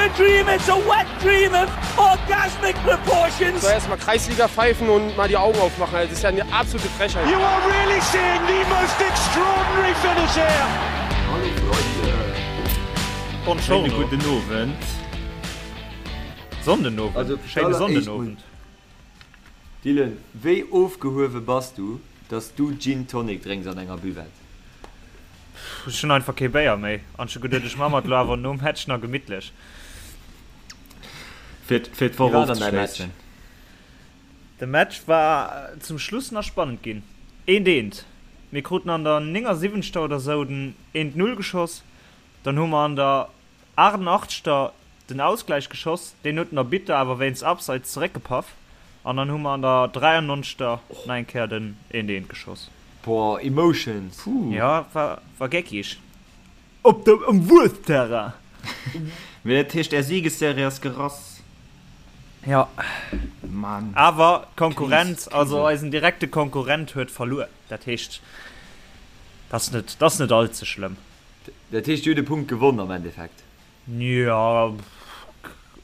a dream, it's a wet dream of orgasmic proportions. So erstmal Kreisliga pfeifen und mal die Augen aufmachen, das ist ja eine absolute Frechheit. You are really seeing the most extraordinary finish here. Hallo Freunde. Schéine gudden Owend. Sonndenowend. Also, Schéine Sonndenowend. Dylan, wéi ofgehuewe bass du, dass du Gin Tonic drénks an enger Buvette? Pff, ech hunn einfach kee Béier méi an ech hu geduet, ech ma mer et lo awer nom Match nach gemittlech. Fir fir Wéi d'Woch war dann däi Match? ofzeschléissen. De Match war zum Schluss nach spannend ginn. Eent eent. Mir kruten an der 79. oder sou den eent Null geschoss, dann hu mer an der 88. Den Ausgläich geschoss, deen huet den Arbitter awer wéinst Abseits zeréckgepaff an dann hu mer an der 93. Nach eng Kéier den eent eent geschoss. Boah, Emotions! Puh. Jo, war war geckig. Op dem um Wues-Terrain! Mee dat heescht är Siegesserie ass gerass? Jo. Mann. Awer d'Konkurrenz, also eisen direkte Konkurrent huet verluer. Dat heescht, dat ass net, dat ass net all ze schlëmm. Dat heescht, dir hutt e Punkt gewonn am Endeffekt? Jo,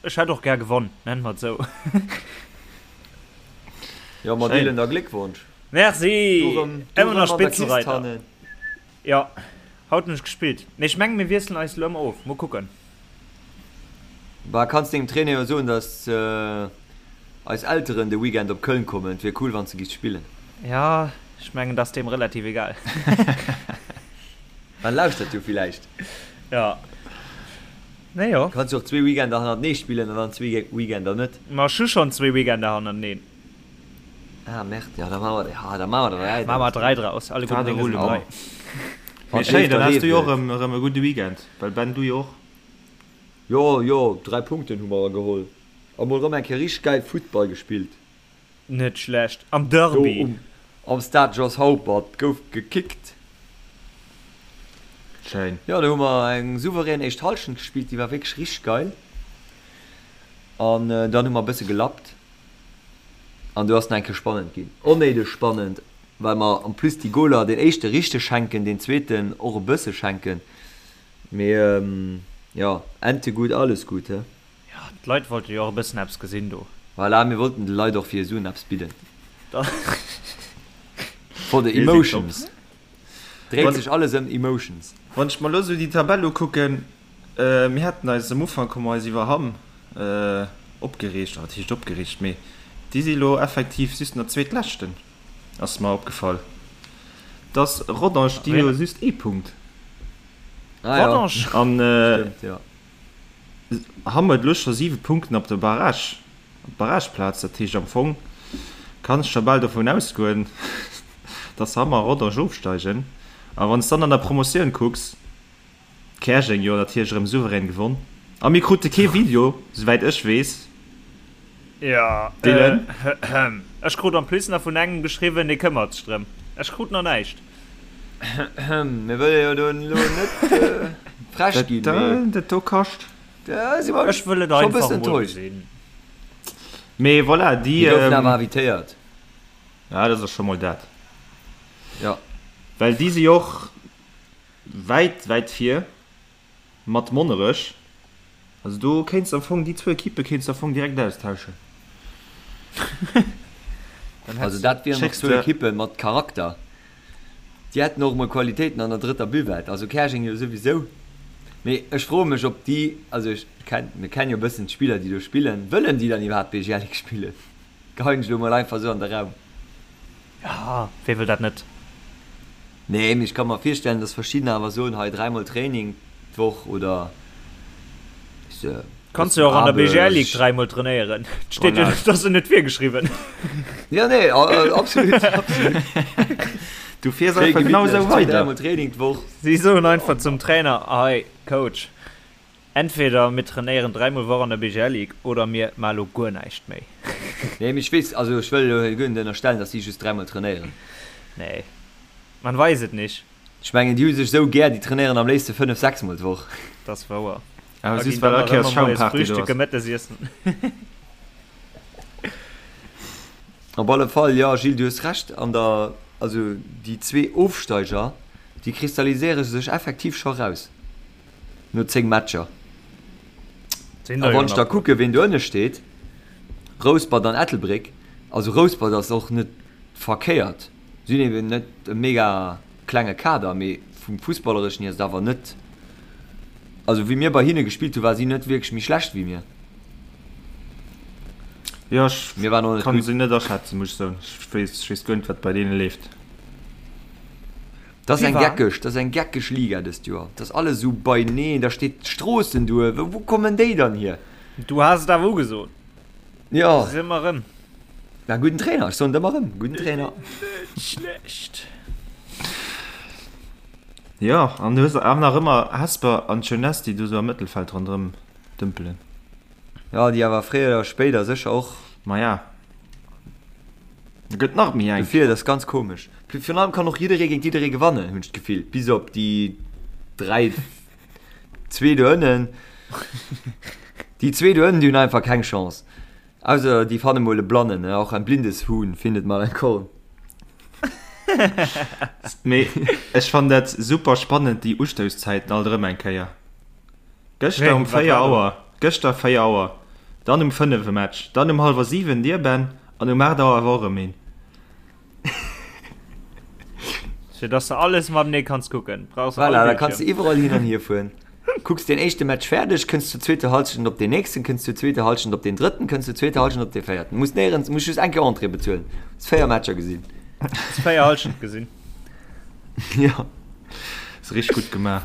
ech hätt och gär gewonn, nennen mer et esou. Jo, ma Dylan, da Gléckwonsch! Merci! Du rëm, du Ëmmer rëm nach an der Kist Spitzenreiter. hannen. Jo, haut hunn ech gespillt. Mee ech mengen, mir wiesselen eis elo ëmmer of. Mol kucken. Bah, kanns dengem Trainer jo soen, dass eis Elteren de Weekend op Köln kommen. Et wier cool, wann s de giffs spillen. Jo, ech mengen, dat ass deem relativ egal. En lauschtert jo villäicht. Jo. Nee, jo. Kanns jo och zwee Weekender hannertenee spillen an dann zwee Weekender net. Ma ech hu schonn zwee Weekender hannerteneen. Ah merde, jo da maache mer, ja da maache mer der dräi Maache mer draus. dräi draus, alle gudden Dinge sinn dräi. Mee schéin, dann has du jo och erëm e gudde Weekend, well Ben, du jo och. Jo, jo, 3 Punkten hu mer geholl a mol rëm eng Kéier richteg gäil Futtball gespillt. Net schlecht, am Derby. Do um am Stade Jos Haupert gouf gekickt. Schéin. Jo, do hu mer eng souverän éischt Hallschent gespillt, déi war wierklech richteg geil. An dann hu mer e bësse gelappt an do ass nach eng Kéier spannend ginn. Onnéideg spannend, well mer en plus déi Goler, deen éischte richteg schenken, deen zweeten och e bësse schenken. Mee jo, Ente gut, alles gut, he? Jo, d'Leit wollte jo och e bëssen eppes gesinn do. Voilà, mir wollten de Leit och fir Suen eppes bidden. For the emotions. Dréit sech alles ëm Emotions. Wann ech mer elo sou déi Tabell ukucken, mir haten eis am Ufank hu mer eis iwwer Hamm opgereegt, wat heescht opgereegt, mee déi si elo effektiv just nach Zweetleschten, ass mer opgefall, dass Rodange, déi hu jo just ee Punkt. Rodange? An Hamm huet elo scho 7 Punkten op der Barrage, op d'Barrageplaz. Dat heescht am Fong kann ech scho bal dovun ausgoen, datt Hamm a Rodange ofsteigen. A wann s dann an der Promotioun kucks, Käerjeng jo natierlech erëm souverän gewonn a mir krute kee Video, souwäit ech weess. Jo, Dylan? ech krut en plus nach vun engem geschriwwen, dee këmmert sech drëm. Ech krut nach näischt. Mir wëlle jo do elo net frech ginn, mee. Dat do kascht. Da si mer Ech wëll et scho einfach bëssen emol enttäuscht. gesinn. Mee voilà, déi. Mir goufen awer invitéiert. Ja, dat ass scho mol dat. Jo. Well déi si jo och wäit, wäit vir. Mat Monnerech. Also do kéints de am Fong, déi zwou Ekippe kéints de am Fong direkt austauschen. Also dat wieren och zwou Ekippe mat Charakter. Déi hätten och emol Qualitéiten an der drëtter Buvette. Also Käerjeng jo souwisou. Mee ech froe mech ob déi, also ech kenn, mir kennen jo e bëssen d'Spiller déi do spillen, wëllen déi dann iwwerhaapt BGL Ligue spillen? Geheien ech elo mol einfach esou an de Raum. Jo, wee wëll dat net? Nee, mee ech ka mer virstellen, dass verschiddener awer soen, hei dräimol Training d'Woch oder weess de, Kanns jo och an der BGL Ligue dräimol trainéieren. Et steet jo, dat ass jo net virgeschriwwen. Jo, nee, absolut, absolut. Du fiers einfach genau esou weider. Dräimol Training d'Woch. Si soen einfach zum Trainer, hei Coach, Entweder mir trainéieren dräimol Woch an der BGL Ligue oder mir maa lo guer näischt méi. Nee, mee ech weess, also ech wëll elo hei guer net ënnerstellen, dass si just dräimol trainéieren. Nee, man weis et nicht. Ech mengen, déi hu sech esou gär, déi trainéieren am léifste 5, 6 mol d'Woch. Dat ass wouer. Awer Da just ginn well dann all nach Kéiers ëmmer moies Schaumparty do Frühstücke, ass. Mëttesiessen. Op alle Fall, jo Gilles, du hues Recht an der, also déi zwee Ofsteiger, déi kristalliséiere sech effektiv scho raus. No 10 Matcher. Sinn A der jo wann ech da nach. kucke ween do ënne steet, Rouspert an Ettelbréck, also Rouspert ass och net verkéiert, si hunn eben net e mega klenge Kader, mee vum Fussballereschen hier ass et awer net, also wéi mir bei hinne gespillt hu war si net wierklech méi schlecht wéi mir. Jo, ech Mir waren och net kann gutt. se net aschätzen, muss ech soen. Ech weess, ech weess guer net wat bei deene leeft. Dat ass Wie eng war? geckeg, dat ass eng geckeg Liga dëst Joer. Dat ass alles esou beineen, da steet Stroossen duer, wou kommen déi dann hier? Du has et awer ugesot. Jo. Se ëmmer erëm. Na, gudden Trainer, ech soen et ëmmer erëm, gudden Trainer. Net schlecht. Jo, an du hues awer nach ëmmer Hesper an Jeunesse, déi do sou am Mëttelfeld ronderëm dëmpelen. Jo, déi awer fréier oder spéider sécher och. Maja, da gëtt nach méi enk. Dofir, dat ass ganz komesch. Virun allem kann och jidderee géint jidderee gewannen, hunn ech d'Gefill, bis op déi 3, Zwee do ënnen. Déi zwee do ënnen, déi hunn einfach keng Chance. Ausser déi fanne mol e Blannen, ne? Auch ein blindes Huhn findet mal ein Korn. Mee ech fannen dat super spannend, déi Ustousszäiten alt erëm eng Kéier. Gëschter um 4 Auer, gëschter 4 Auer, dann um 5 e Match, dann um hallwer 7 dir Ben an um 8 Auer awer och erëm een. Fir dass de alles matenee kanns kucken, brauchs de all Voilà, da kanns Bildschirm. de iwwerall hin an hier fueren. Kucks deen éischte Match fäerdeg, kënns zur zweeter Halschent op deen nächsten, kënns zur zweeter Halschent op deen drëtten, kënns zur zweeter Halschent op dee véierten. Muss néierens, muss just eng Kéier Entrée bezuelen. Hues 4 Matcher gesinn. Hues 4 Halschent gesinn. Ja. Ass richteg gutt gemaach.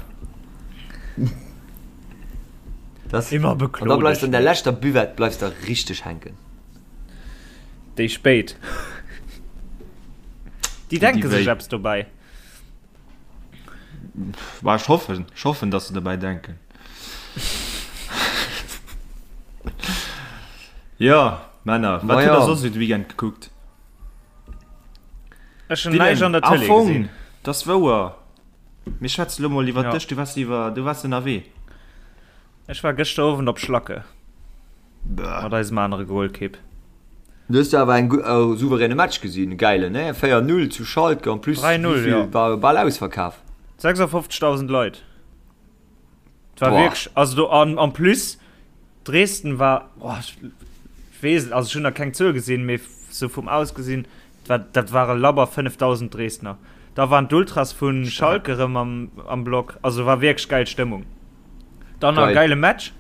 Das, Immer an da beklo bleifs dech de an der net. leschter Buvette bleifs de richteg hänken. Déi spéit. Déi denke sech eppes dobäi. Bah, ech hoffen, ech hoffen, dass se dobäi denken. Jo, Männer, wat hutt der soss esou de Weekend gekuckt? Ech hunn näischt an der Tëlee gesinn. Dat ass wouer. Mir schwätzen elo mol iwwer dech. Du waars iwwer, du waars ënnerwee. Ech war gëschter Owend op Schlacke. Mat eisem anere Golkipp. Du hues do awer eng e souveräne Match gesinn, e gäilen, ne? 4, 0 zu Schalke, en plus 3, 0, wéivill jo. war bal ausverkaf. 56.000 Leit. Et war Boah. wierklech, also do an en plus Dresden war, boah, ech weess et, also ech hunn nach keng Zuel gesinn, mee sou vum Ausgesinn, dat war, dat ware labber 5.000 Dresdner. Da waren d'Ultras vu Schalke rëm am, am Block, also war wierklech gäil Stëmmung. Dann nach e Geil. gäile Match.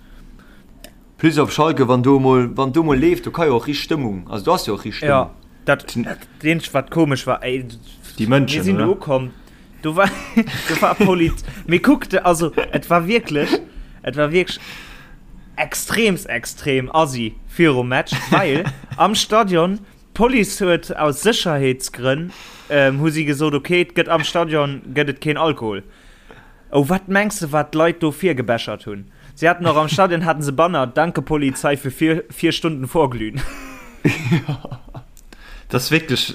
Plus op Schalke, wann do mol, wann do mol leeft, do ka jo och richt Stëmmung, also do ass jo och richt Ja, Stëmmung. dat, dat eenzegt wat komesch war, ey, Déi mir Mënschen, sinn do oder? ukomm, do war, do war Polit, mee kuck, de, also et war wierklech, et war wierklech extreemst extrem assi virum Match, well am Stadion, d'Police huet aus Sécherheetsgrënn, ähm, hu si gesot, okay, et gëtt am Stadion gëtt et keen Alkohol. Oh, wat mengs de wat d'Leit do virgebechert hunn? Si haten och am Stadion haten se Banner, Danke Polizei für vier, vier Stunden Vorglühen. Dat ass wierklech.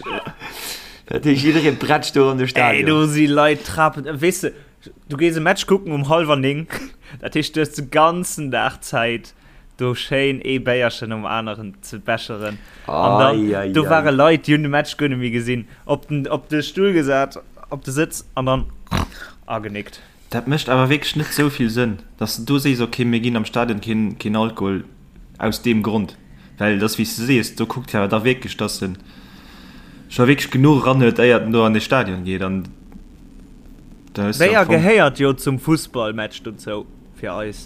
Dat heescht jidderee brätscht do an de Ey, Stadion. do si Leit trapen. Weess de, du gees e Match kucken um hallwer 9, dat heescht du hues de ganzen Dag Zäit do schéin ee Béierchen nom aneren ze becheren. An dann, Ei, ei, do ei. ware Leit, déi hunn de Match guer net méi gesinn, op den, op de Stull gesat, op de Sëtz an dann agenickt. Dat mécht awer wierklech net esou vill Sënn, dass de do sees, ok, mir ginn am Stadion keen, keen Alkohol aus deem Grond. Well et ass wéi s de sees, do kuckt jo awer da wierklech, dass en scho wierklech genuch eran huet, éiert en do an de Stadion geet. An da hues de am Béier Fong. gehéiert jo zum Fussballmatch dozou. Fir eis.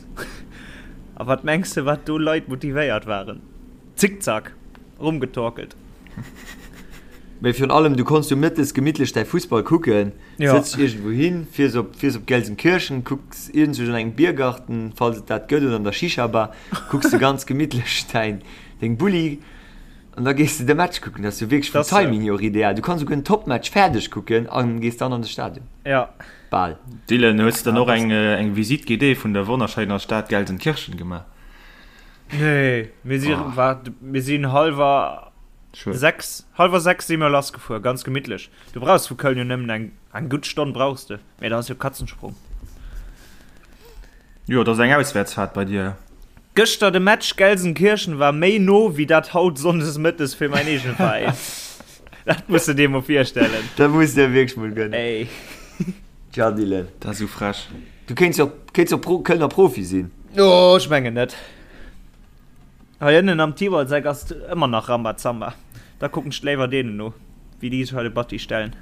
A wat mengs de wat do Leit motivéiert waren? Zickzack rumgetorkelt. Mee virun allem, du konns jo mëttes gemittlech däi Fussball kucken, Ja. sëtz dech iergendwou hin, fiers op, fiers op Gelsenkirchen, kucks iergendwou an engem Biergarten, falls et dat gëtt, oder an der Shisha-Bar, kucks de ganz gemittlech däin, deng Bulli an da gees de de Match kucken. Dat ass jo wierklech vum Dat ass Timing hier och ideal. Du kanns souguer en Topmatch fäerdeg kucken a gees dann an de Stadion. Ja. Bal. Dylan, hues de dann och eng eng Visite guidée vun der wonnerschéiner Stad Gelsenkirchen gemaach? Nee, mir si wat mir sinn hallwer 6 hallwer 6 si mir lassgefuer, ganz gemittlech. Du brauchs vu Köln jo nëmmen eng eng gutt Stonn brauchs de, mee dat ass jo Katzensprung. Jo, dat ass eng Auswäertsfaart bei dir. Gëschter de Match Gelsenkirchen war méi no wéi dat haut Sonndes mëttes fir mäin eegene Veräin. Dat muss de dir mol virstellen. Dat muss de dir wierklech mol gönnen. Ey. Tja Dylan. Dat ass esou frech. Du kéints jo kéints jo Pro Kölner Profi sinn. Oh, ech mengen net. Hei ënnen am Tiwalseck ass et ëmmer nach Rambazamba. Da kucken ech léiwer deenen no, wéi déi sech hei de Batti stellen.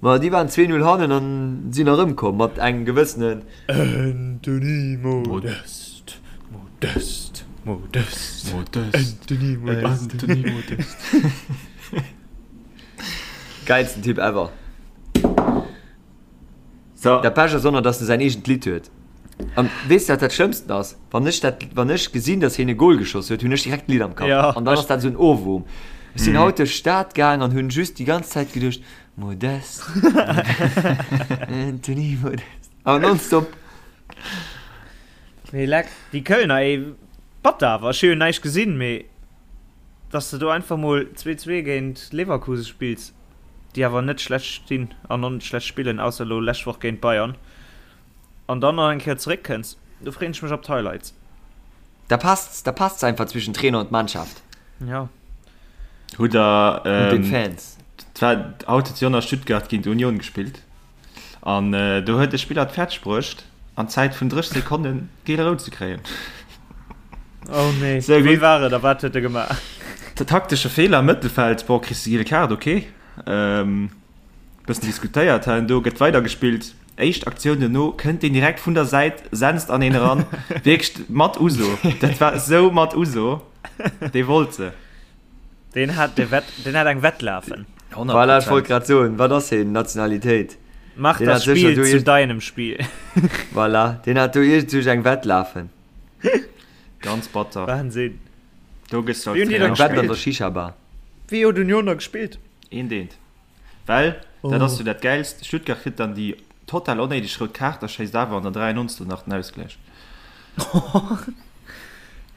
Ma déi waren 2, 0 hannen an sinn erëmkomm mat engem gewëssenen. Anthony Modeste, Modeste, Modeste, Anthony Modeste. Anthony Modeste. Gäilsten Typ ever. So. Dat Bescht ass och nach, dass en säin eegent Lidd huet. An weess de wat dat Schlëmmsten ass? Wann ech dat, wann ech gesinn, dass hien e Goal geschoss huet, hunn ech direkt d'Lidd am Kapp. Ja, An dann ass dat esou en Ohrwurm. Ech sinn haut duerch d'Stad gaang an hunn just déi ganz Zäit geduecht, Modeste, Anthony Modeste. Awer nonstop. Mee leck, déi Kölner, ey, batter awer. Ech hu jo näischt gesinn, mee dass de do einfach mol 2-2 géint Leverkusen spills, déi awer net schlecht stinn an och net schlecht spillen, ausser elo lescht Woch géint Bayern, an dann nach eng Kéier zeréckkënns, do freeën ech mech op d'Highlights. Da passt's, da passt's einfach zwischen Trainer und Mannschaft. Ja. Hutt der, Und den Fans. War, haut huet jo nach Stuttgart géint Union gespillt. An do huet e Spiller et fäerdeg bruecht, an Zäit vun 30 Sekonnen giel-rout ze kréien. Oh nee, Sou wéi war et a wat huet e gemaach? Taktesche Feeler am Mëttelfeld, bon, kriss de giele Kaart, ok. Bëssen diskutéiert hei an do, gëtt weidergespillt. Éischt Aktioun duerno kënnt deen direkt vun der Säit, senzt an een eran. Wierklech mat Uso. Dat war esou mat Uso. Dee wollt se. Deen hat de Wett, deen hat eng Wett lafen. 100%. Voilà, ech wollt grad soen, wat ass heen Nationalitéit? Mach Deen das hat sécher Spiel do zu iergend- deinem Spiel. Voilà, deen hat do iergendwou eng Wett lafen. Ganz batter. Wahnsinn. Do gëss du Wéi als hunn déi Trainer da Eng Wett an gespillt? der Shisha-Bar. Wéi huet Union da gespillt? Eent eent. Well, dat Oh. ass jo dat Gäilst, Stuttgart kritt dann déi total onnéideg rout Kaart a schéisst awer an der 93. nach den Ausgläich.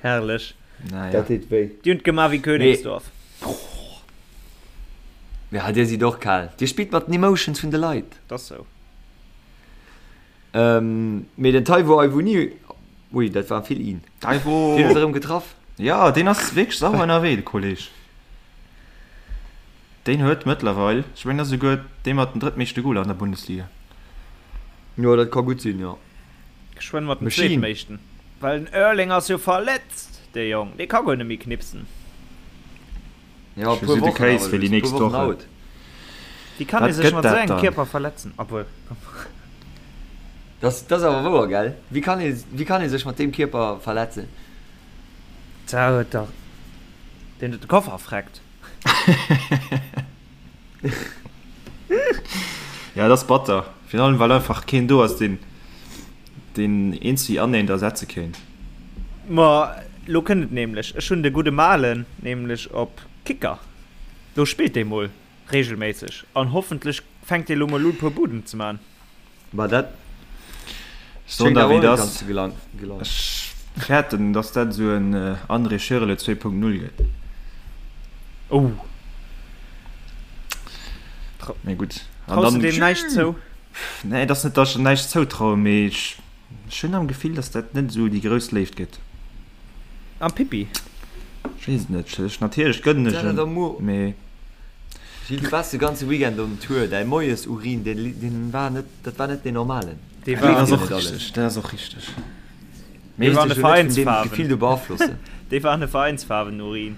Herrlech. Naja. Dat deet wéi. Déi hunn et gemaach wéi Königsdorf. Ja, dir sidd och kal. Dir spillt mat den Emotions vun de Leit. Dat ass sou. Mee den Taiwo Awoniyi, ui, dat war vill in. Taiwo! Deen huet erëm getraff. Ja, deen ass wierklech sauer ënnerwee, de Kolleg. Deen huet mëttlerweil, ech mengen, ass esouguer dee mat den drëttmeeschte Goler an der Bundesliga. Jo, dat ka gutt sinn, jo. Geschwënn mat dem Machine. zweetmeeschten. Well den Erling ass jo verletzt, dee Jong, dee ka guer net méi knipsen. Ja, e Ech puer si de Wochen Case awer fir déi just, e nächst puer Wochen Woche. out. Wéi kann ee Wat sech gëtt mat esou dat engem dann? Kierper verletzen? Obwuel, komm. Dat ass awer wouer, gell? Wéi kann ee, wéi kann ee sech mat deem Kierper verletzen? Da huet dach deen huet de Koffer freckt. Ja, dat ass batter. Virun allem, well einfach keen do ass, deen deen eent wéi aneent ersetze kéint. Ma lo kënnt et nämlech, ech hunn de gudde Malen nämlech op Kicker. Do spillt dee mol regelméisseg an hoffentlech fänkt dee lo mol un puer Buden ze man. Ma dat Soen schéngt der awer wéi och net et ganz ass, ze gelang gelangen. ech fäerten, dass dat esou en André Schürrle 2.0 gëtt. Oh. Mee gutt. An Traus de dann, deem näischt zou? nee, et ass net, dass ech em näischt zoutrauen, mee ech, ech hunn am Gefill, dass dat net esou déi grouss Léift gëtt. Am Pippi? Ech weess et net. Ech, natierlech gënnen ech Dat em, mee. Gilles, du waars de ganze Weekend on Tour, däi Moiesurin, deen, deen war net, dat war net deen normalen. Dee Dat war, ass Gleeft dir och net alles. richteg, dat ass och richteg. dee Léiss war an de dech jo net vun deem Veräinsfaarwen. Gefill do beaflossen. Dee war an de Veräinsfaarwen-Urin.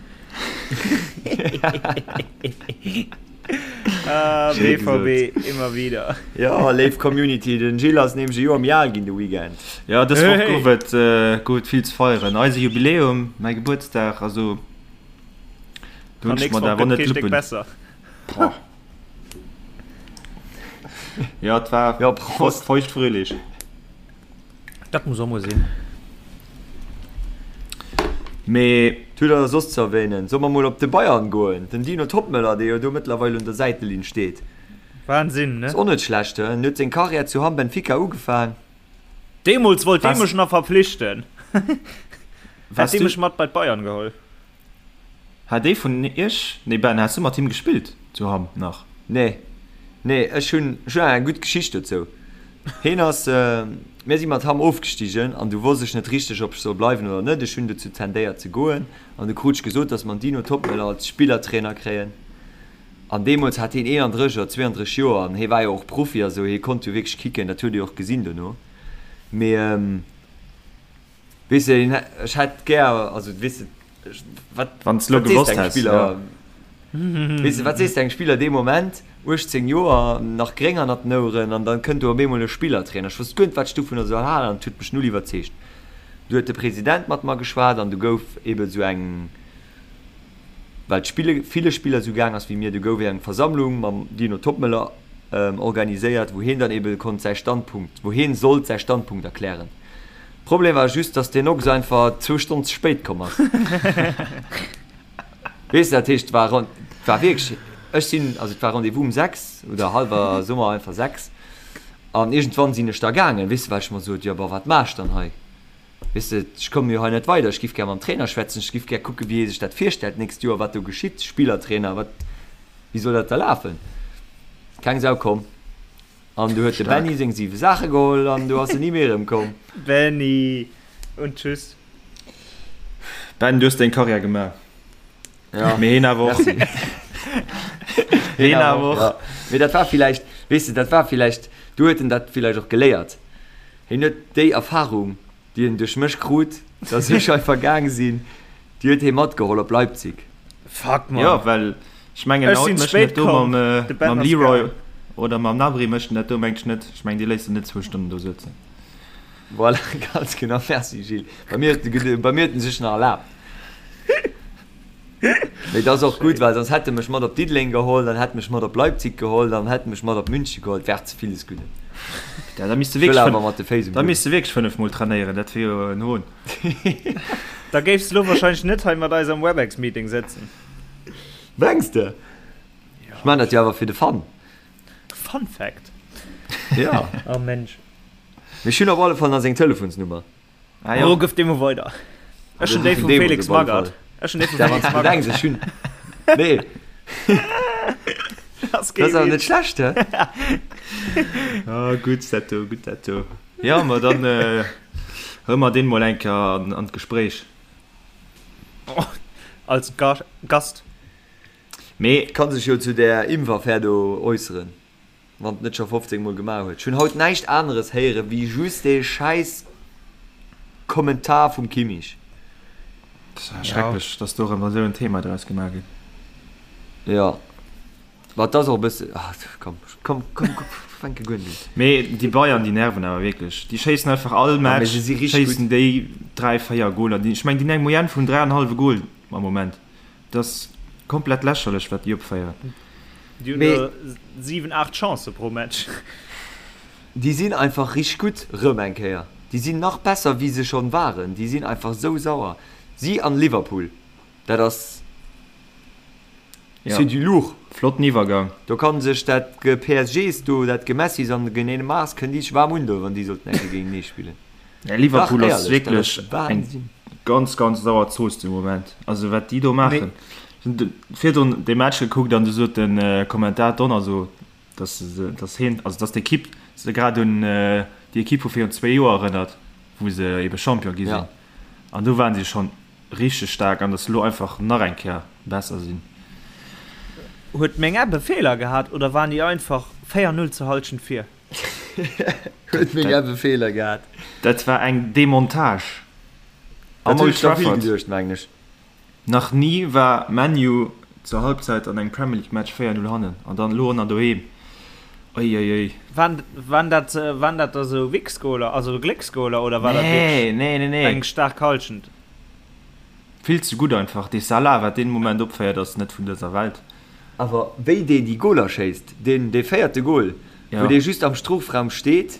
Ah, Schéi BVB, immer wieder. Jo, léif Community, den Gilles ass nämlech e Joer méi al ginn de Weekend. Ja, dës Woch Hey! gouf et, gouf et vill ze feieren. Eise Jubiläum, mäi Gebuertsdag, also do hunn An ech nächst mer Woch awer gëtt net kee Stéck Luppen. besser. Boah. Ja, et war Jo, Prost. feucht fröhlich. Dat muss och mol sinn. Mee. Hutt der soss ze erwähnen? Solle mer mol op de Bayern goen? Den Dino Toppmöller, dee jo do mëttlerweil un der Säitelinn steet. Wahnsinn, ne? Ass och net schlecht, he? En huet seng Karriär zu Hamm Benfica ugefaang. Deemools wollt dee Was? mech nach verpflichten. Hätt Was dee du? mech mat bei d'Bayern geholl. Hat ee vun iech, nee Ben, has du mat him gespillt zu Hamm nach? Nee, nee, ech hunn, ech hunn eng gutt Geschicht dozou. Heen ass, mir si mat Hamm ofgestigen an du wosst ech net richteg, ob ech soll bleiwen oder net. Ech hunn dozou tendéiert ze goen an du krut ech gesot, dass mer den Dino Toppmöller als Spillertrainer kréien. An deemools hat heen 31 oder 32 Joer an hee war jo och Profi a sou, hee konnt jo wierklech kicken, dat huet ee och gesinn dono. Mee. Weess de, ech hätt gär, also weess de, wat, Wann s lo wat sees gewosst de engem häss, Spiller, ja. weess de, wat sees de engem Spiller dee Moment, 18 Joer, nach gréng hannert den Oueren, an dann kënnt do op eemol e Spillertrainer. Ech wosst guer net, wat ech dovunner soll halen, an et huet mech null iwwerzeegt. Du huet de President mat mer geschwat an du gouf ebe sou eng, well d'Spille ville Spiller sou gaang ass wéi mir, du gouf eng Versammlung mam Dino Toppmöller organiséiert, wou hien dann ebe konnt säi Standpunkt, wou hien sollt säi Standpunkt erklären. Problem war just, dass deen Ochs einfach zwou Stonnen ze spéit komm ass. Weess de, dat heescht, et war, et war wierklech, ech sinn, also et war Rendez-vous um 6 oder hallwer, soe mer einfach 6, an iergendwann sinn ech da gaangen, weess de, well ech mer sot, jo, bon, wat maach ech dann hei? Weess de, ech komme jo hei net weider, ech giff gär mam Trainer schwätzen, ech giff gär kucken, wéi hie sech dat virstellt d'nächst Joer, wat do geschitt, Spillertrainer, wat, wéi soll dat da lafen? Keng Sau komm. An du huet de Benny seng siwe Saache geholl an du ass en ni méi erëmkomm. Benny und tschüss. Ben, du hues deng Karriär gemaach. Ja. Mee heen awer och. Heen awer och. Ja. Mee dat war villäicht, weess de, dat war villäicht, du huet en dat villäicht och geléiert. Hien huet déi Erfahrung, déi en duerch mech krut, dass ech einfach gaang sinn, déi huet hie matgeholl op Leipzig. Fuck, Mann. Jo, well ech mengen, Ech haut sinn mécht en spéit dat do komm, mam, de Ben mam ass Leroy gaang. oder mam Gnabry mécht en dat do, mengt ech net. Ech mengen, déi léisst en net zwou Stonnen do sëtzen. Voilà, ganz genau. Merci Gilles. Bei mir huet, bei mir huet en sech nach erlaabt. Mee dat ass och gutt, well soss hätt e mech mat op Diddeleng geholl, dann hätt e mech mat op Leipzig geholl, dann hätt e mech mat op München geholl. Et wär ze villes Gudden. Ja, da misst de Ech wëll wierklech awer mat de Féiss um da Buedem. misst de wierklech 5 mol trainéieren, dat wier jo en Hohn. Da géifs de lo wahrscheinlech net hei mat eis am Webex-Meeting sëtzen. Mengs de? Ech maan dat jo awer fir de Fun. Fun Fact. Ja. Oh Mensch. Mee ech hunn op alle Fall nach seng Telefonsnummer. Ah, ja. Oh, gëff déi mol weider. Ech hunn déi vum Felix Magath. Ech hunn déi vum Felix Magath. Denks, ech hunn. Nee. Das Dat ass awer net schlecht, hä? Ah, gutt dat do, gutt dat do. Ja, ma dann äh, huele mer deen mol eng Kéier an, an d'Gespréich. Oh, als Ga Gast. Mee. Kann sech jo zu där Impfaffär do äusseren. Wann et net scho 15 mol gemaach huet. Ech hunn haut näischt aneres héiere wéi just dee schäiss Kommentar vum Kimmich. Dat ass schrecklech, dass do erëm esou en Thema draus gemaach gëtt. Jo, ma et ass och e bësse, ah komm, komm, komm, fänke guer net un. Mee déi Bayern, déi nerven awer wierklech. Déi schéissen einfach all Match schéissen déi 3, 4 Goler. Ech mengen, déi hunn eng Moyenne vun 3,5 Goal am Moment. Dat ass komplett lächerlech wat déi opféieren. Déi hunn der 7, 8 Chancë pro Match. Déi sinn einfach richteg gutt rëm eng Kéier. Déi sinn nach besser wéi se schonn waren. Déi sinn einfach sou sauer. Si an Liverpool, dat ass, c'est du lourd. Flotten Iwwergang. Do kann sech dat PSGs do, dat Gemessis an de Neymars kënnen déi sech waarm undoen, wann déi sollten eng Kéier géintenee spillen. Ja, Liverpool Dach, ass éierlech, dat wierklech ass eng Wahnsinn. ganz, ganz sauer Zooss de Moment. Also wat déi do maachen. Hunn virdrun de Match gekuckt an du sot den Kommentator Donner so, dass se, dass hien, also dass d'Ekipp se grad un déi Ekipp vu virun zwee Joer erënnert, wou se ebe Champion gi sinn. Ja. An do waren si schonn richteg staark an dass se elo einfach nach eng Kéier besser sinn. Huet meng App e Feeler gehat oder waren déi einfach 4, 0 zur Halschent vir? Huet meng App e Feeler gehat? Dat war eng Demontage Dat am hunn Old ech der vill Trafford. geduecht, mengen ech. Nach ni war ManU zur Halbzeit an engem Premier League Match 4, 0 hannen an dann elo och nach doheem. Uiuiui. Waren, waren dat, waren dat da sou Wichsgoaler, also Glécksgoaler oder war dat Nee, wierklech nee, nee, nee. eng staark Halschent? Vill ze gutt einfach. Dee Salah, wat deen Moment opféiert, ass net vun dëser Welt. Awer wéi deen déi Goler schéisst, deen dee véierte Gol, wou dee just am Strofraum steet,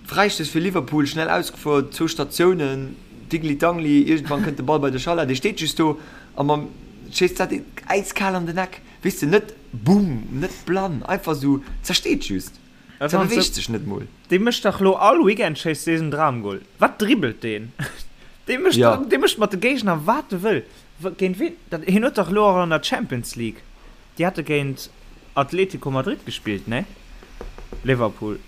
Fräistouss fir Liverpool, schnell ausgefuer, zwou Statiounen, Digli-Dangli, iergendwann kënnt de Ball bei de Salah, dee steet just do a mam schéisst dat äiskal an den Eck, weess de, net bumm, net blann, einfach esou, zersteet just, zerbeweegt sech net mol. Dee mécht dach lo all Weekend schéisst dee en Dramgol. Wat dribbelt deen? Dee mécht, dee mécht mat de Géigner wat e wëll. Géint ween? Dat, hien huet dach elo och an der Champions League, déi hate géint Atletico Madrid gespillt, nee? Liverpool,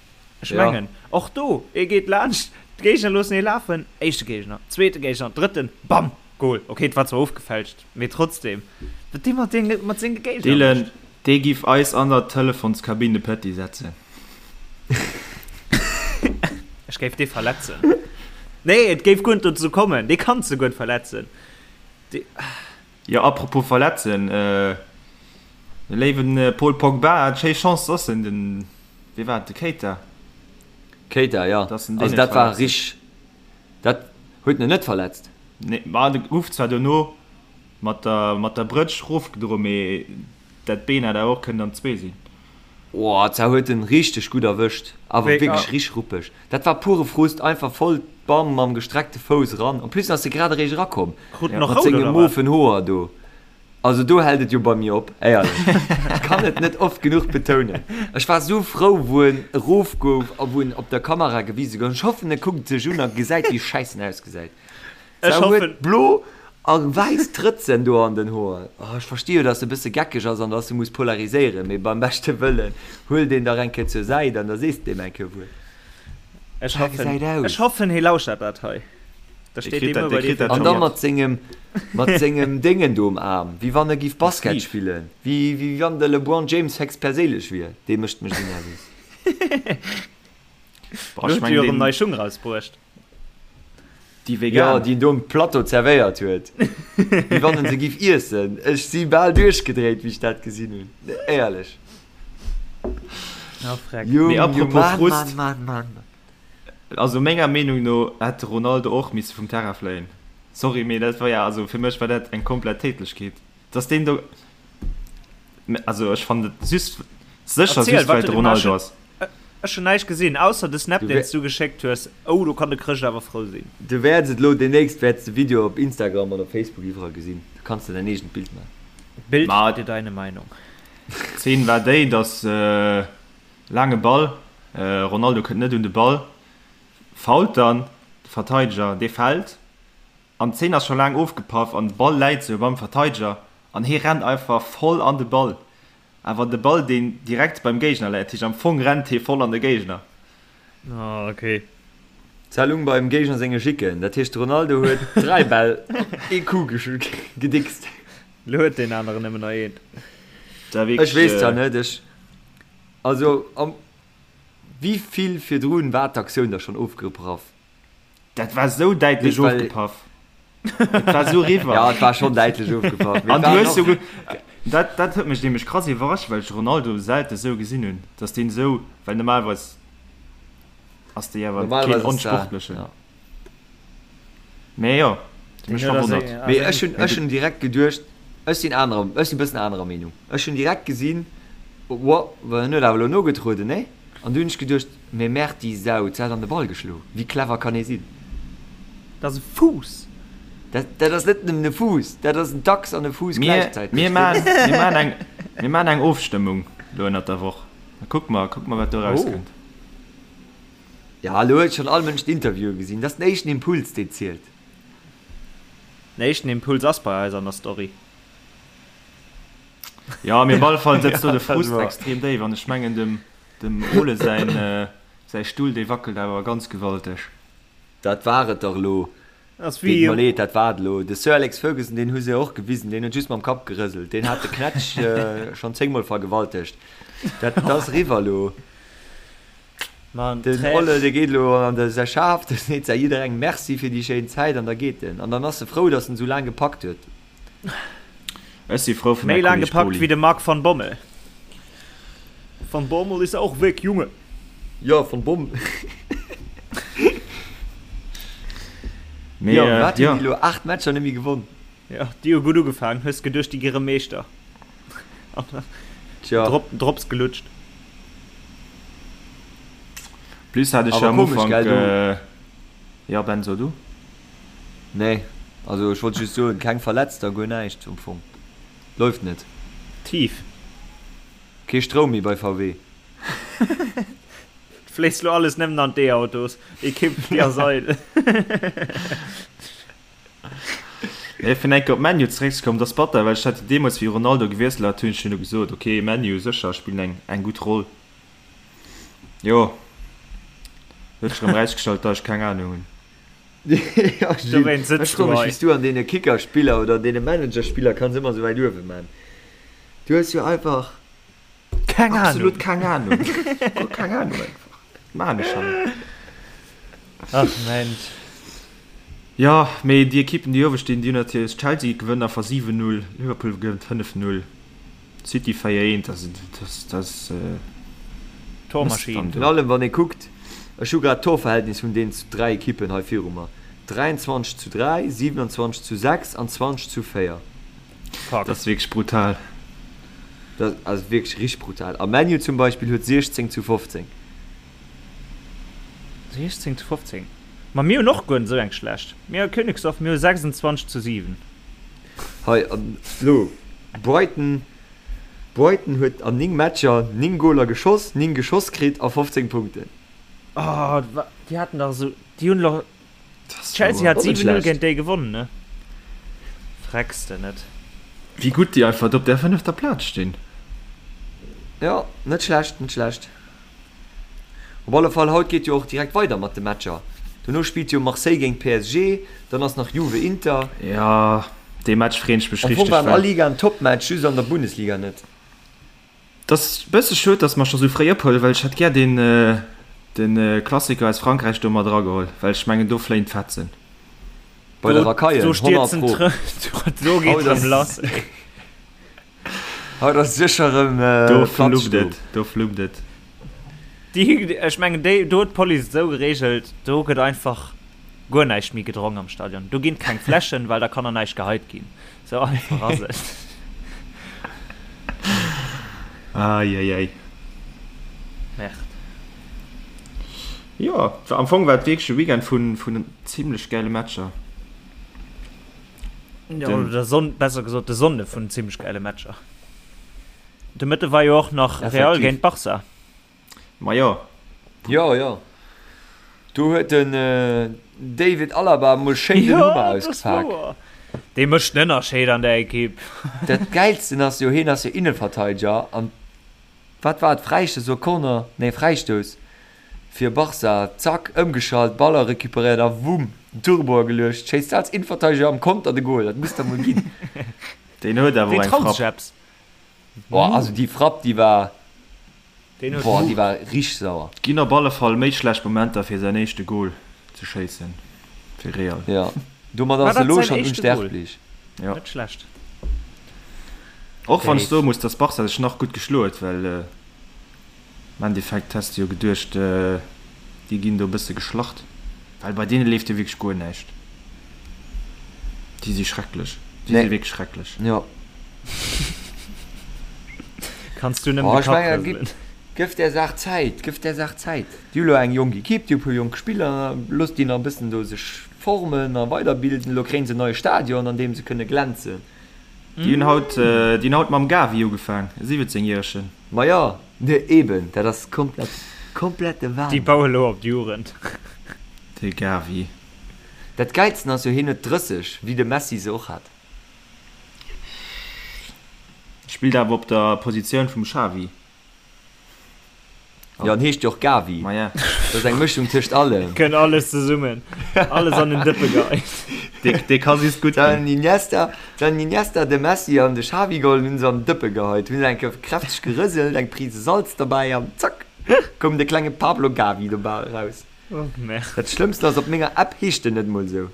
ech mengen. Och do, e geet laanscht, d'Géigner loossen hie lafen, éischte Géigner, zweete Géigner, drëtten, bam, Gol. Ok, et war zwar ofgefälscht, mee trotzdem, wat dee mat deene, mat senge Géigner Dylan, mécht. dee giff eis an der Telefonskabinn de Petit setzen. Ech géif dee verletzen. Nee, et géif guer net dozou kommen. Dee kanns de guer net verletzen. Dee. Jo, apropos verletzen, de léiwen Paul Pogba hat schéi Chance, dass en den, wee war et, de Keita? Keita, jo. Dass en deen Also net dat war verletzt huet. rich. Dat huet en net verletzt. Nee, ma de gouf zwar dono mat der, mat der Brëtsch rofgedroen, mee dat Been hätt awer och kënnen an zwee sinn. Oh, zwar huet en richteg gutt erwëscht, awer wierklech richteg ruppeg. Dat war pure Frust, einfach voll bam mam gestreckte Fouss eran. En plus ass e grad eréischt erakomm mat senge mofen Hoer do. Also do hält et jo bei mir op, éierlech. Ech kann et net oft genuch betounen. Ech war sou frou wou en erof gouf a wou en op der Kamera gewise gouf. Ech hoffen e kuckt sech un a gesäit wéi schäiss en ausgesäit. Ech Se huet hoffen. blo a wäiss Trëtzen do an den Hoer. Oh, ech versti jo, dass se e bësse geckeg ass an dass se muss polariséieren, mee beim beschte Wëllen, huel deen dach eng Kéier zur Säit an da sees de deem eng Kéier wuel. Ech War hoffen, gesäit aus. ech hoffen, hie lauschtert dat hei. Da Dee steet kritt dee dat, muer dee bei dir kritt fir dat An scho da mat. mat sengem, mat sengem Déngen do um Aarm, wéi wann e giff De Basket Sleeve. spillen, wéi, wéi wann de LeBron James héchstperséinlech wier. Dee mécht mech esou nervös. Boah, Lo ech huet e jo mengen, erëm deen. nei Schung rausbruecht. Déi Jo, vegan. déi en do um Plateau zerwéiert huet. Wéi wann en se giff iessen. Ech si bal duerchgedréit, wéi ech dat gesinn hunn. Éierlech. Ah, freck. Jung, Mee Jung, apropos Mann, Frust. Mann, Mann, Mann. Also menger Meenung no hätt de Ronaldo och misse vum Terrain fléien. Sorry, mee dat war ja, also fir mech war dat eng komplett Tätlechkeet, dass deen do, also ech fannen et just, sécher Erziel, just wat well huet de de gemaach? Ronaldo ass. Ech hun näischt gesinn ausser de Snap Du deen s du geschéckt hues. Oh do kann de Chrëscht awer frou sinn. Du wäerts et elo demnächst wäerts de Video op Instagram an op Facebook iwwerall gesinn. Du kanns der däin eegent Bild man. Bild Ma dir deine Meinung. D'Zeen war déi, dass laange Ball, Ronaldo kënnt net un de Ball, foult dann de Verteideger, dee fält an d'Zeen ass scho laang ofgepaff an de Ball läit sou beim Verteideger an hie rennt einfach voll an de Ball. Awer de Ball deen direkt beim Géigner läit, heescht am Fong rennt hee voll an de Géigner. Ah ok. Zellung beim Géigner senge Jicken, dat heescht de Ronaldo huet 3 Bäll op ee Coup gedickst. Lo huet deen aneren nëmmen nach een. Ech weess zwar net, ech, also am wéi vill virdrun war d'Aktioun da schonn ofgepraff? Dat war sou däitlech ofgepaff. Et war sou riwwer. Ja, et war schonn däitlech ofgepaff. An du hues jo, dat, dat huet mech nämlech krass iwwerrascht, well ech Ronaldo selte sou gesinn hunn, dass deen sou, well normalerweis ass dee awer keen Onsportlechen. Ja. Mee jo, huet mech verwonnert. Mee ech hunn, ech hunn direkt geduecht, ech sinn anerer, ech sinn e bëssen anerer Meenung. Ech hunn direkt gesinn, Wow, well en huet awer elo nogetrueden, nee? An du hunn ech geduecht, Mee merde, déi Sau, se hat an de Ball geschlo. Wéi clever kann ee sinn? Dat ass e Fuuss! Dat, dat ass net nëmmen e Fuuss, dat ass en Dachs an e Fuuss gläichzäiteg. Mir, mir maachen, mir maachen eng, mir maachen eng Ofstëmmung elo ënnert der Woch. Da kucke mer, kucke mer, wat do erauskënnt. Ja, elo huet schonn all Mënsch d'Interviewe gesinn. Dat ass den éischten Impuls, deen zielt. Den éischten Impuls ass bei eis an der Story. Jo, mee op alle Fall sëtzt do de Ja, dat Frust war. extrem déif an ech mengen, dem, dem Ole säin, säi Stull, dee wackelt awer ganz gewalteg. Dat war et dach elo. Ass Deet wéi. mer leed, dat war et elo. De Sir Alex Ferguson, deen hu se och gewisen, deen huet just mam Kapp gerëselt. Deen hat de Knätsch schonn zéngmol vergewaltegt. Dat ass eriwwer elo. Mann, Den Trä. Olle, dee geet elo an de säi Schaf, dee seet säi jidderengem Merci fir déi schéin Zäit an da geet en. An dann ass e frou, datt en esou laang gepackt huet. Ech si frou fir Méi mäi laang Kolleg gepackt Poli. wéi de Marc van Bommel. Van Bommel ist auch weg, Junge! Jo, van Bommel. Mee, Jo, wat hunn jo. déi elo? 8 Matcher net méi gewonn. Jo, déi hu gutt ugefaangen. Hues geduecht, déi gi rëm Meeschter. An dann Tja. Drop, Drops gelutscht. Plus hat ech Awer jo am komesch, Ufank, gell, du. jo Ben, so du. Nee, also ech wollt just soen, keng Verletzter, guer näischt am Fong. Läuft net. Tief. Kee Stroum méi bei VW. Et fléisst lo alles nëmmen an d'E-Autos. Equipe, déi ass eidel. Nee, fir enke op ManU zeréckzekommen, dat ass batter, well ech hat jo deemools, wéi Ronaldo gewiesselt hat, hunn ech jo gesot, ok, ManU sécher spillen eng, eng gutt Roll. Jo, huet sech erëm erausgestallt, datt ech keng Anung hunn. Ja, Gilles, Dowéinst ech sëtz du froe mech, hei. wéi s du an deene Kickerspiller oder an deene Managerspiller kanns ëmmer esou wäit uewe man. Du hues jo einfach Keng Ahnung. Absolut keng Ahnung. Guer keng Ahnung einfach. Wat maan ech han? Ach Mensch. Jo, mee déi Ekippen, déi uewe stinn, déi hunn natierlech, Chelsea gewënnt einfach 7, 0, Liverpool gewënnt 5, 0, City 4, 1, also dat ass Tormaschinn. Virun allem wann ee kuckt, ech hu grad d'Torverhältnis vun deenen 3 Ekippen hei viru mer, 23 zu 3, 27 zu 6 an 20 zu 4. Fuck. Dat ass wierklech brutal. Dat ass wierklech richteg brutal. A ManU zum Beispill huet 16 zu 15. 16 zu 15. Ma mir hunn och guer net esou eng schlecht. Mir a Königsdorf, mir hu 26 zu 7. Hei, an elo Brighton. Brighton huet an 9 Matcher 9 Goler geschoss, 9 geschoss kritt a 15 Punkten. Oh, déi haten dach esou, déi hunn elo Chelsea hat 7, 0 géint déi gewonnen, ne? Frecks de net. Wéi gutt déi einfach do op där fënnefter Plaz stinn. Jo, net schlecht, net schlecht. Op alle Fall, haut geet jo och direkt weider mat de Matcher. Dono spillt jo Marseille géint PSG, dann ass nach Juve Inter. Jo, dee Match freeën ech mech Am Fong richteg, war an well. all Liga en Topmatch, just an der Bundesliga net. Et ass e bësse schued, dass mer scho sou fréi ophuelen, well ech hätt gär den de Klassiker aus Frankräich do mat erageholl, well ech mengen do fléien d'Fetzen. Bei der Racaille, 100 Pro. Do geet rëm lass, ey. Haut ass sécher rëm Do Platz fluppt do. et, do fluppt et. Déi, ech mengen déi, do huet d'Police et esou gereegelt, do gëtt einfach guer näischt méi gedronk am Stadion. Do ginn keng Fläschen, well da kann der näischt geheit ginn. Sou einfach ass et. Eieiei. Merde. Jo, am Fong war et wierklech e Weekend vun, vun zimlech gäile Matcher. Jo, oder der Sonn, besser gesot de Sonnde vun zimlech gäile Matcher. De Mëtte war jo och nach Real géint Barca. Ma jo. Jo, jo. Do huet den David Alaba mol schéin den Hummer ausgepak. Dee mécht den Ënnerscheed an der Ekipp. Dat Gäilsten ass jo, hien ass jo Innenverteideger an wat war et, Fräistouss oder Corner? Nee, Fräistouss fir Barca. Zack, ëmgeschalt, Baller recuperéiert a wumm, den Turbo ageluecht. Schéisst als Innenverteideger am Konter de Gol. Dat muss der mol ginn. Deen huet awer och Deen eng traut Frapp. sech eppes. Boah, also déi Frapp, déi war. Deen huet Boah, déi Mut. war richteg sauer. Ginn op alle Fall méi schlecht Momenter fir säin éischte Gol ze schéissen fir Real. Jo, domat War ass e dat lo säin schonn éischte Gol? unsterblech. Jo. Net schlecht. Och wann ech Dave. soe muss, dass Barca sech nach gutt geschloe huet, well am Endeffekt häss de jo geduecht, déi ginn do e bësse geschlacht, well bei deene leeft jo wierklech guer näischt. Déi si schrecklech, déi si Nee. wierklech schrecklech. Jo. Kanns du nëmmen Oh, de ech Kapp mengen, gib, rëselen. gëff där Saach Zäit, gëff där Saach Zäit. Déi hu lo eng jonk Ekipp, déi hu e puer jonk Spiller, looss déi nach e bëssen do sech formen a weiderbilden. Elo kréien se en neie Stadion, an deem se kënne glänzen. Déi hunn haut, déi hunn haut mam Gavi ugefaang, e 17 järegen. Ma jo, ne eben, dat ass komplett, komplette Déi Wahnsinn. baue lo op d'Jugend. De Gavi. Dat Gäilsten ass jo, hien huet 30, wéi de Messi se och hat. Spillt awer op der Positioun vum Xavi. Jo, en heescht jo och Gavi. Maja. Dat ass eng Mëschung tëscht allem. Kënnt alles zesummen, alles an den Dëppe geheit. Dee ka just gutt ginn. Den Iniesta, den Iniesta, de Messi an de Xavi geholl, hunn se an den Dëppe geheit, hunn se eng Kéier kräfteg gerëselt, eng Prise Salz derbäi an zack, koum de klenge Pablo Gavi dobäi eraus. Oh merde. Dat Schlëmmsten ass, op menger App heescht en net mol esou.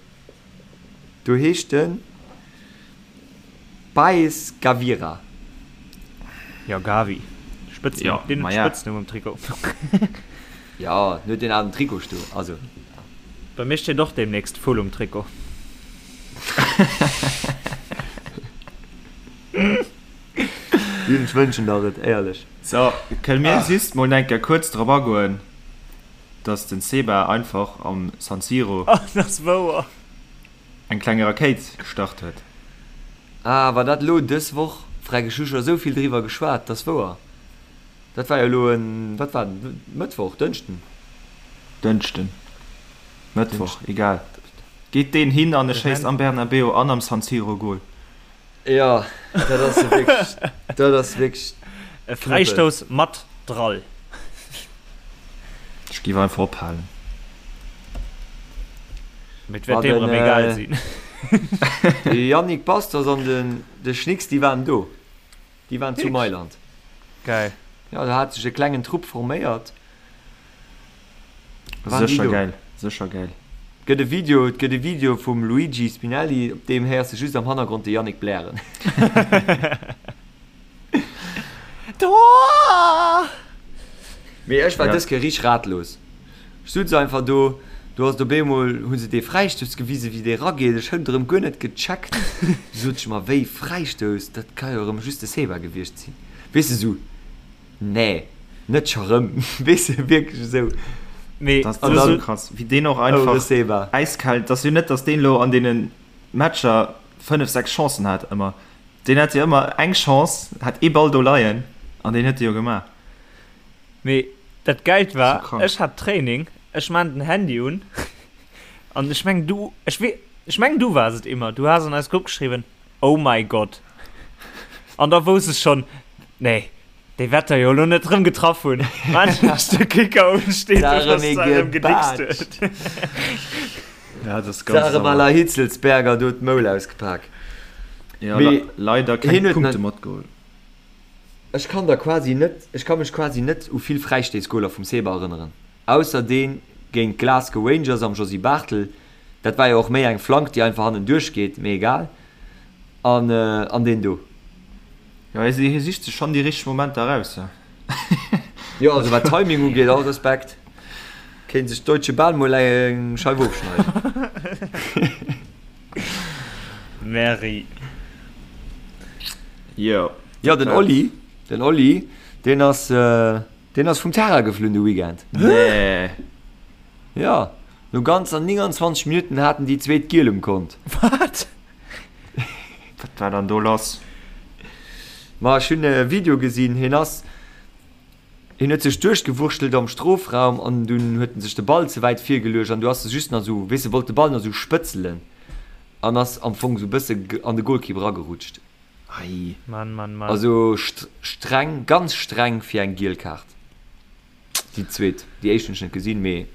Do heescht en Paes Gavira. Jo, Gavi. Spëtznumm. Jo, Deen huet maja. Spëtznumm um Trikot. Jo, en huet deen alen Trikot stoen, also. Bei mir steet och deemnächst Vull um Trikot. Jun, ech wënschen der et, éierlech. So, kënne mir just mol eng Kéier kuerz drop agoen, dass den Seba einfach am San Siro. Oh, dat ass wouer. Eng kleng Rakéit gestart huet. Ah, war dat elo dës Woch? Freck, ech hu scho esou vill driwwer geschwat, dat ass wouer. Dat war jo elo en, wat war dat, Mëttwoch, Dënschden? Dënschden, Mëttwoch, egal. Geet deen hin an e schéisst am Bernabeu an am San Siro Gol. Jo, dat ass jo wierklech, dat ass wierklech E Knëppel. Fräistouss mat Drall. Ech géif einfach ophalen. Mee et Ma wäert deem den, erëm egal sinn. De Yannick Bastos an den de Schnicks, déi waren do. Déi waren zu Wierklech? Mailand. Geil. Jo, do hat sech e klengen Trupp forméiert. Waren déi Sécher do. gäil, sécher gäil. Gëtt e Video, et gëtt e Video vum Luigi Spinelli, op deem héiers de just am Hannergrond de Yannick blären. Tor! Mee ech war dës Kéier richteg ratlos. Ech sutz einfach do, do ass et op eemol, hu se dee Fräistouss gewisen, wéi dee rageet. Ech hunn et erëm guer net gecheckt. Du sot ech mer, wéi Fräistouss, dat ka jo erëm just de Seba gewiescht sinn. Weess de, sou. Nee, net scho rëm. Weess de, wierklech esou. Mee dat ass esou krass, wéi deen och einfach äiskal. Et ass jo net, datt deen elo an deene Matcher 5, 6 Chancen hat ëmmer. Deen hat jo ëmmer eng Chance, hat ee Ball do leien an deen huet e jo gemaach. Mee dat Gäilt war, ech hat Training, ech maan den Handy un an ech mengen du, ech wee, ech mengen du waars et Immer, du has an eis Grupp geschriwwen, Oh my God! An da wousst ech schonn, nee, déi wäert der jo elo net rëm getraff hunn. Wann ech de Kicker un, steet do, dass se erëm gedickst huet. Ja, dat ass ganz sauer. D'Sarem à la Hitzelsberger do d'Moul ausgepak. Ja, leider keng Punkte matgeholl. Ech kann der quasi net, ech ka mech quasi net u vill Fräistéissgoler vum Seba erënneren, ausser deen géint d'Glasgow Rangers am Josy Barthel, dat war jo och méi eng Flank déi einfach hannenduerch geet, mee egal, an an deen do. Jo, hie sicht sech schonn déi richteg Momenter eraus, jo. Jo, also wat Timing ugeet, all Respekt, kéint sech d'Deutsche Bahn mol eng Scheif ofschneiden. Merri. Jo. Jo, den Oli, den Oli, deen ass, deen ass vum Terrain geflunn de Weekend. Nee. Jo, no ganzer 29 Minutten haten déi zweet Giel um Kont. Wat? Wat war dann do lass? Ma ech hunn e Video gesinn, hien ass, hien huet sech duerchgewurschtelt am Strofraum an dunn huet en sech de Ball ze wäit virgeluecht an du ass e just nach esou, weess de, wollt de Ball nach esou spëtzelen an ass am Fong esou e bësse an de Golkipp eragerutscht. Ei. Mann, Mann, Mann. Also streng, ganz streng fir eng giel Kaart. Déi zweet, déi éischt hunn ech net gesinn, mee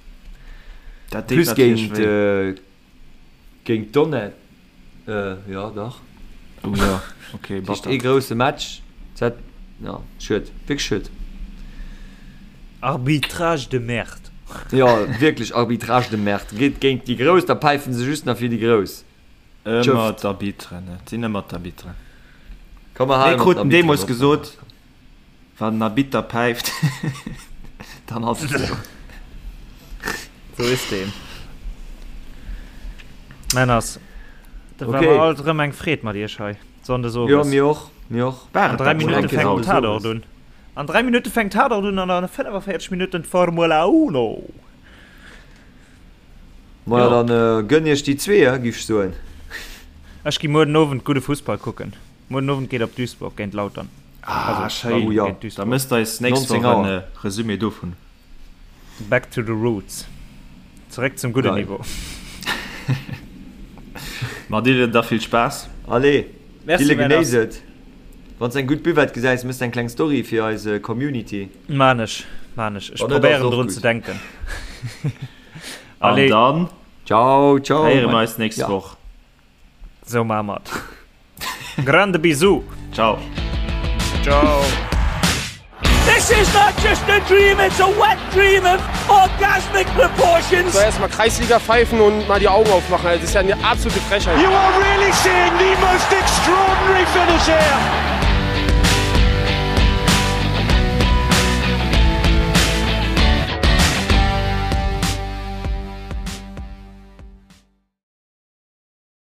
Dat deet plus natierlech géint wéi. géint Donnet, jo dach. Oh jo, okay, Dat heescht ee batter. grousse Match, dat, jo, schued, wierklech schued. Arbitrage de merde. Jo, wierklech Arbitrage de merde. Geet géint déi Grouss, da päifen se just nach fir déi Grouss. Ëmmer d'Arbitren, et sinn ëmmer d'Arbitren. Komm mer Mir halen op kruten d'Arbitren deemools op. gesot, wann den Arbitter päift, dann ass et esou. Sou is deen. Männers, dat war Okay. mer alt erëm eng Freed mat iech hei, Sonndes Jo, owes. mir och, mir och. War An et 3 dat schon Minutte eng Kéier fänkt den Sonndes Tatort owes? un. An 3 Minutte fänkt Tatort un an a 45 Minutten d'Formula Uno. Maja, dann gönn iech déi zwee, giff ech soen. Ech gi muer den Owend gudde Fussball kucken. Muer den Owend geet op Duisburg géint Lautern. Ah, Also, schéin. Lautern Oh ja. géint Da Duisburg. mësst eis nächst 19 Woch en Auer. Resumé dovun. Back to the roots. Zeréck zum gudden Geil. Niveau. Ma Dylan, da vill Spaass. Allez, Merci, Dylan, Männers. genéiss et. Wann s eng gutt Buvette gesäis, mëss eng kleng Story fir eis Community. Maan ech, maan ech. Ech Wann net, ass probéieren och drun gutt. ze denken. An Allez. dann Ciao, ciao. héiere mer eis nächst Ja. Woch. Sou maa mer et. Grande Bisous. Ciao. Ciao. This is not just a dream, it's a wet dream of orgasmic proportions. So erstmal Kreisliga pfeifen und mal die Augen aufmachen. Das ist ja eine absolute Frechheit. You are really seeing the most extraordinary finish here.